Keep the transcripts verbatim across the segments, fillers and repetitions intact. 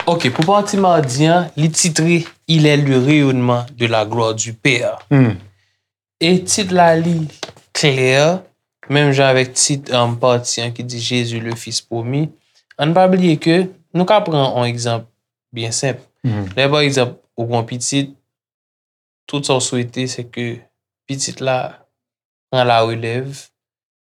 Ok, pou pati madi an, li titre Il est le rayonnement de la gloire du Père. Hmm. E tit la li klè, menm jan avèk tit um, pati an ki di Jésus le Fils promis. Ann pa bliye ke nou ka pran yon egzanp byen senp. Mhm. Lè pa egzanp, ou gen yon pitit, tout sa w swete se ke pitit la pran la relèv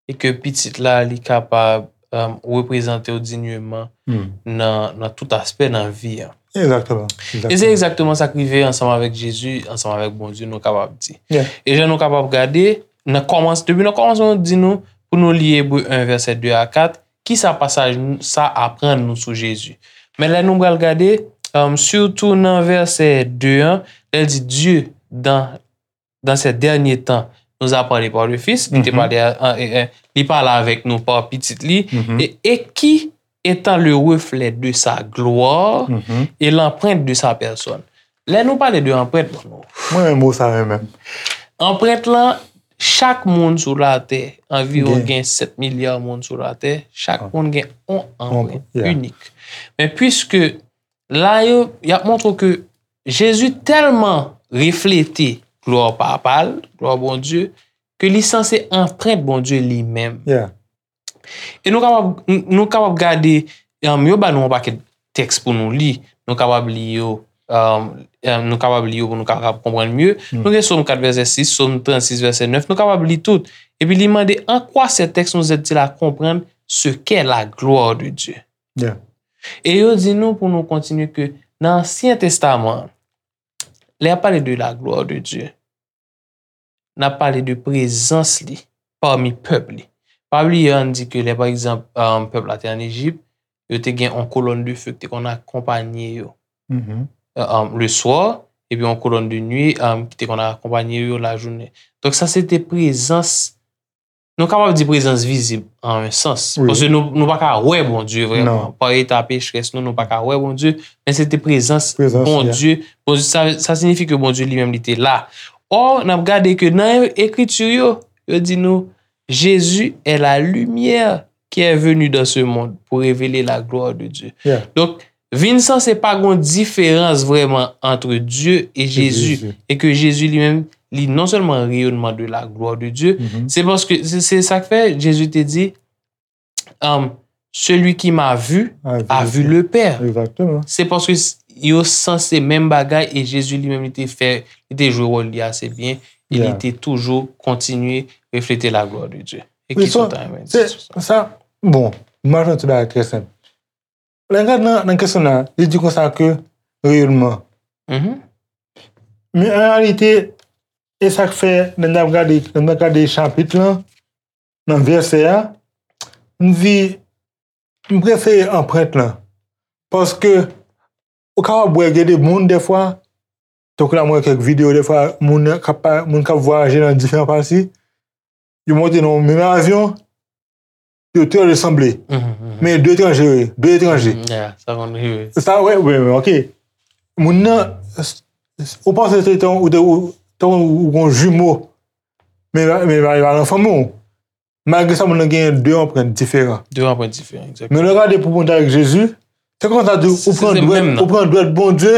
e ke pitit la li kapab um, reprezante w dinyman Hmm. nan, nan tout aspè nan vi an. Egzakteman. E se egzakteman sa k rive ansanm avèk Jezi, ansanm avèk Bondye, nou kapab di. Yeah. E jan nou kapab gade, nan kòmans, depi nan kòmansman, nou di nou pou nou li Ebre en vèsè de a kat, ki sa pasaj sa aprann nou sou Jezi. Men lè nou pral gade, um, sitou nan vèsè de an, lè l di Dieu dans dans ces derniers temps nous a parlé par le Fils, li te Mhm. pale a- a- e- e- li pale avèk nou pa pitit li, Mhm. e, et qui étant le reflet de sa gloire Mhm. et l'empreinte de sa personne. Lè nou pale de anprent, bon, nou- Mwen renmen mo sa menm. anprent lan, chak moun sou latè, anviwon Gen. Gen sèt milya moun sou latè, chak Ah. moun gen yon anprent Yeah. inik. Men piske la yo, y ap montre ke Jezi tèlman reflete glwa papa l, glwa Bondye, ke li sanse anprent Bondye li menm. Yeah. E nou kapab, nou kapab gade, um, yo ba nou yon pakèt tèks pou nou li. Nou kapab li yo, um, um, nou kapab li yo pou nou kapab konprann mye. Hmm. Nou gen Sòm kat vèsè sis, Sòm trannsis vèsè nèf, nou kapab li tout. Epi li mande, en quoi ces textes nous aident-ils à comprendre ce qu'est la gloire de Dieu? Yeah. E yo di nou pou nou kontinye ke nan Ansyen Testaman, lè y ap pale de la gloire de Dieu, n ap pale de prezans li pami pèp li. Pa bliye, ann di ke lè, pa egzanp, um, pèp la te ann Ejip, yo te gen yon kolòn de fe ki te konn akonpanye yo. Mhm. Um, le soir, epi yon kolòn de nuit, um, ki te konn akonpanye yo lajounen. Donk, sa se te prezans, nou kapab di prezans vizib an yon sans. Wi. Paske nou, nou pa ka wè Bondye vrèman. Non. Pa eta pechres nou, nou pa ka wè Bondye, men se te prezans Prezans, Bondye. Bondye sa, sa siyifi ke Bondye li menm li te la. Ò, n ap gade ke nan ekriti yo, yo di nou, Jésus est la lumière qui est venue dans ce monde pour révéler la gloire de Dieu. Yeah. Donk, vin sanse pa gon diferans vrèman ant Dye e Jezi, Jezi. E ke Jezi li menm, li non sèlman reyonnman de la gloire de Dieu, Mhm. se paske, se, se sa k fè Jezi te di, um, celui qui m'a vu a vu le Père. Egzakteman. Se paske s- yo sanse menm bagay e Jezi li menm li te fè, li te jwe wòl li ase byen e li Yeah. te toujou kontinye reflete la gloire de Dieu. E Wi, ki sa w so, ta renmen di se, sou sa? Sa, bon, m ap jwenn ti bagay trè senp. Lè n gade nan, nan kesyon nan, li di konsa ke reyonnman. Mhm. Men an reyalite, e sa k fè, lè n ap gade, lè n ap gade chapit lan, nan vèsè a, m di, m prefere anprent lan. Paske, ou kapab wè gen de moun dèfwa, tankou la mwen wè kèk videyo dèfwa, moun k ap pa- moun k ap vwayaje nan diferan pati, yo monte nan yon menm avyon, yo trè resanble. Mhm, mhm. Men de etranje, wi, de etranje. Mhm, yeah, sa konn rive. Sa, wè, wè, wè, ok. Moun nan, ou panse se tan ou te, ou, tan ou gon jimo, men, men, men, men, fanmi w. Malgre sa, moun nan gen de anprent diferan. De anprent diferan, egzakteman. Men lè w gade pou konn avèk Jezi, se konsa di, ou Se- pran se dwèt, menm nan. Ou pran dwèt Bondye,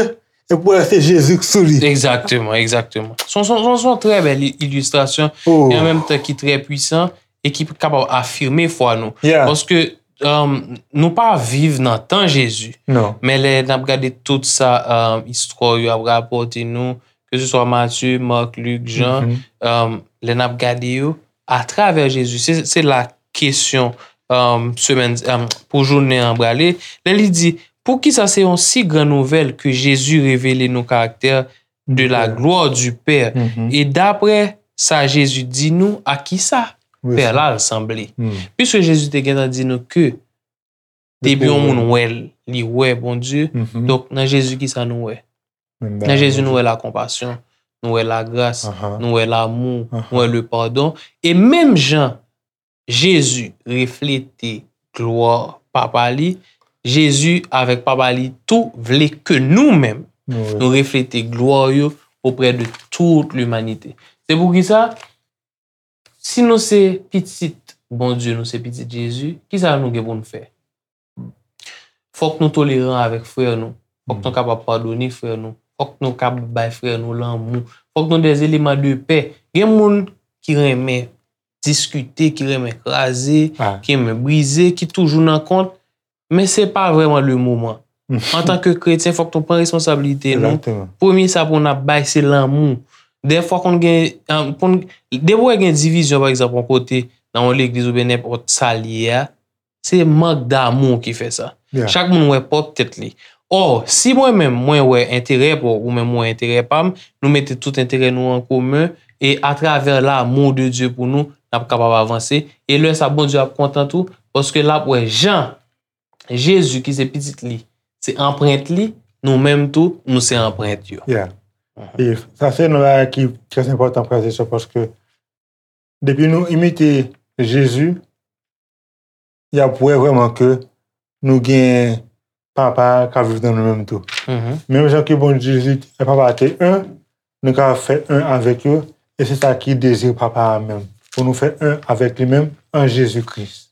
e pou wè se Jezi k sou li. Egzakteman, egzakteman. Se yon, se yon, se yon trè bèl i- ilistrasyon, Oh. e an menm tan ki trè pwisan, e ki kapab afime fwa nou. Yeah. Paske, um, nou pa viv nan tan Jezi. Non. Men lè n ap gade tout sa, um, istwa yo ap rapòte nou, ke se swa Matye, Mak, Lik, Jan, Mhm. um, lè n ap gade yo, atravè Jezi, se, se la kesyon, um, semèn, um, pou jounen an prale. Lè li di, poukisa se yon si gran nouvèl ke Jezi revele nou karaktè de la Pè. Gloire du Père? Mhm. E daprè sa Jezi di nou, a kisa Wi, Pè sa. La l sanble? Hmm. Piske Jezi te gentan di nou ke depi yon moun wè l, li wè Bondye. Mhm. Donk, nan Jezi, kisa nou wè? Menm Nan bagay, Jezi, Bondye. Nou wè lakonpasyon, nou wè lagras, Aha. Nou wè lamou, Aha. Nou wè le padon. E menm jan Jezi reflete glwa Papa li, Jezi avèk Papa li tou vle ke nou menm, Nou wè. Nou reflete glwa yo oprè de tout limanite. Se poukisa, si nou se pitit Bondye, nou se pitit Jezi, kisa nou gen pou nou fè? Fòk nou toleran avèk frè nou. Fòk nou kapab padone frè nou. Fòk nou kapab bay frè nou lanmou. Fòk nou de eleman de pè. Gen moun ki renmen diskite, ki renmen kraze, ki renmen brize, ki toujou nan kont, men se pa vrèman le moman. Antanke kretyen, fòk nou pran responsablite nou. Premye sa pou n ap bay, se lanmou. Dèfwa konn gen, depi w gen divizyon, pa egzanp, yon kote, nan yon legliz oubyen nenpòt sa l ye a, se mank damou ki fè sa. Chak moun wè pwòp tèt li. Ò, si mwen menm, mwen wè enterè pa w, ou menm ou wè enterè pa m, nou mete tout enterè nou an komen, e atravè l'amour de Dieu pou nou, n ap kapab avanse. E lè sa, Bondye ap kontan tou, paske l ap wè jan Jezi ki se pitit li, se anprent li, nou menm tou, nou se anprent yo. Yeah. E sa se yon bagay ki trè enpòtan, frè e sè, paske depi nou imite Jezi, y ap wè vrèman ke nou gen Papa k ap viv nan nou menm tou. Menm jan ke Bondye Jezi e Papa te en, nou ka fè en avèk yo, e se sa ki dezi Papa a menm, pou nou fè en avèk li menm an Jezi Kris.